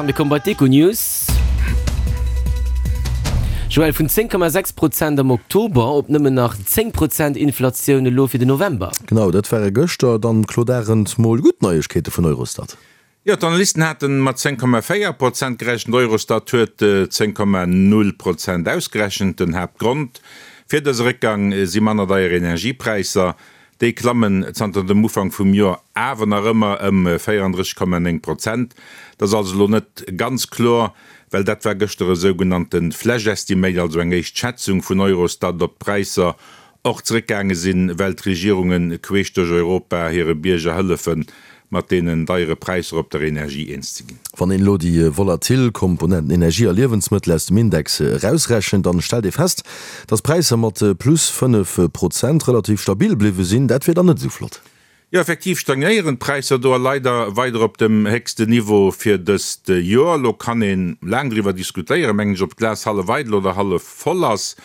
Mir komme bei d'Econews. Joël, vun 10,6 Prozent am Oktober op nëmmen nach 10 Prozent Inflatioun elo fir den November. Genau, dat ware gëschter dann, Claude Arend, mol gutt Neiegkeete vun Eurostat. Jo, d'Analysten hate mat 10,4 Prozent gerechent, Eurostat huet 10,0 Prozent ausgerechent. Den Haaptgrond fir dëse Réckgang si manner deier Energiepräisser. Déi klammen zanter dem Ufank vum Joer awer nach ëmmer ëm 34,9 Prozent. Dat ass also elo net ganz kloer, well dat war gëschter e sougenannte Flash Estimate, also eng éischt Schätzung vun Eurostat, ob d'Präisser och zeréckgaange sinn, well d'Regierunge queesch duerch Europa hire Bierger hëllefen, mat deenen deiere Präisser op der Energie eens ze ginn. Wann een elo déi volatil Komponenten Energie a Liewensmëttel aus dem Index erausrechent, dann stellt ee fest, dass d'Präisser mat plus 5 Prozent relativ stabil bliwwe sinn. Dat wier dann net esou flott. Jo, effektiv stagnéieren d'Präisser do a leider weider op dem héchsten Niveau fir dëst Joer. Elo kann ee laang driwwer diskutéieren, mengen ech, ob d'Glas hallef eidel oder hallef voll ass,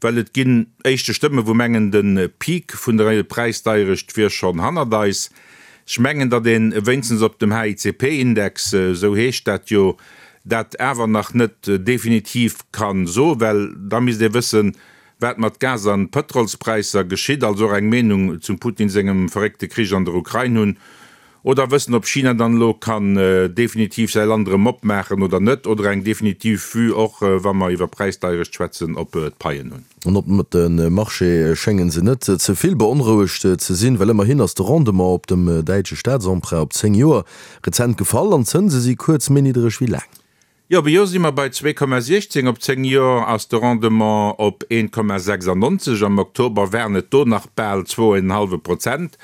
well et ginn éischte Stëmme wou mengen, de Peak vun der Präisdeierecht wier schonn hannert eis. Ech mengen, datt ee wéinstens op dem HICP-Index, esou heescht dat jo, dat awer nach net definitiv ka soen, well da misst ee wëssen, wat mat Gas an Pëtrolspräisser geschitt, also och eng Meenung zum Putin sengem verréckte Krich an der Ukrain hunn, oder wëssen, ob China dann elo kann definitiv säi Land erëm opmaachen oder net, oder eng definitiv Vue och, wa mer iwwer Präisdeierecht schwätzen, op d'Paien hunn. An op de Marché schénge se net ze vill beonrouegt ze sinn, well ëmmerhin ass de Rendement op dem däitsche Staatsemprunt op 10 Joer rezent gefall an d'Zënse si kuerz méi niddereg wéi laang. Jo, op e Joer si mer bei 2,16, op 10 Joer ass de Rendement op 1,96. Am Oktober waren et do nach bal zwou en hallwe Prozent.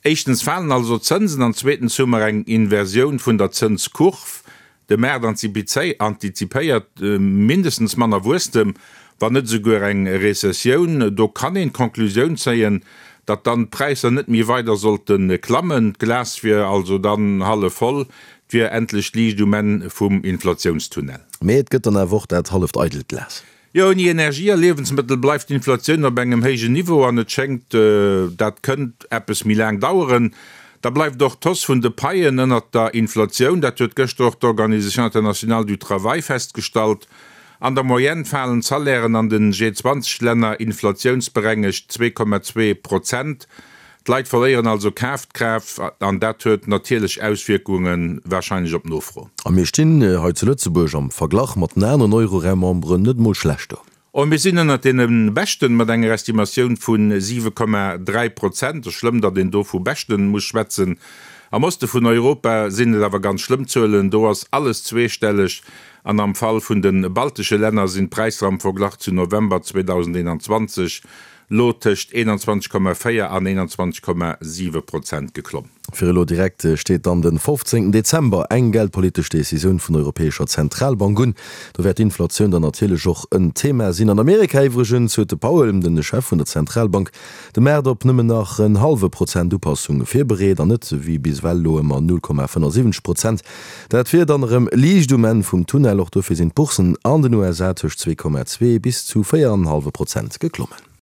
Éischtens falen also d'Zënsen an zweetens hu mer eng Inversioun vun der Zënskurv. De Maart antizipéiert mindestens manner Wuesstem, wann net esouguer eng Rezessioun. Do kann een d'Conclusioun zéien, datt dann d'Präisser net méi weider sollte klammen. D'Glas wier also dann hallef voll, et wier endlech Liicht um Enn vum Inflatiounstunnel. Mee et gëtt dann awer och dat halleft eidelt Glas. Jo, ouni Energie a Liewensmëttel bleift d'Inflatioun op engem héijen Niveau an et schéngt, dat kënnt eppes méi laang daueren. Da bleift och d'Hausse vun de Paien ënnert der Inflatioun, dat huet gëschter och d'Organisation internationale du travail festgestallt. An der Moyenne falen d'Salairen an den G20-Länner inflatiounsberengegt 2,2 Prozent. D'Leit verléieren also Kafkraaft an dat huet natierlech Auswierkunge warscheinlech op d'Nofro. A mir stinn hei zu Lëtzebuerg am Verglach mat den aneren Euroraum-Memberen net emol schlecht do. Oh, mir sinn ënnert deene Beschten, mat enger Estimatioun vu 7,3 Prozent. Et ass schlëmm, datt een do vu Beschten muss schwätzen. Am Oste vun Europa sinn et awer ganz schlëmm Zuelen, do ass alles zweestelleg an am Fall vun de baltesche Länner sinn d'Präisser am Verglach zu November 2021 lo tëscht 21,4 an 21,7 Prozent geklomm. Fir elo direkt steet dann de 15 Dezember eng geldpolitesch Decisioun vun der Europäescher Zentralbank un. Do wäert d'Inflatioun dann natierlech och en Thema sinn. An Amerika iwwregens huet de Powell, de Chef vun der Zentralbank, de Maart op nëmmen nach en hallwe Prozent Upassung virbereet an net wéi bis ewell elo ëmmer 0,75 Prozent. Dat wier dann erëm Liicht um Enn vum Tunnel. Och dofir sinn d'Boursen an den USA tëscht 2,2 bis zu 4,5 Prozent geklommen.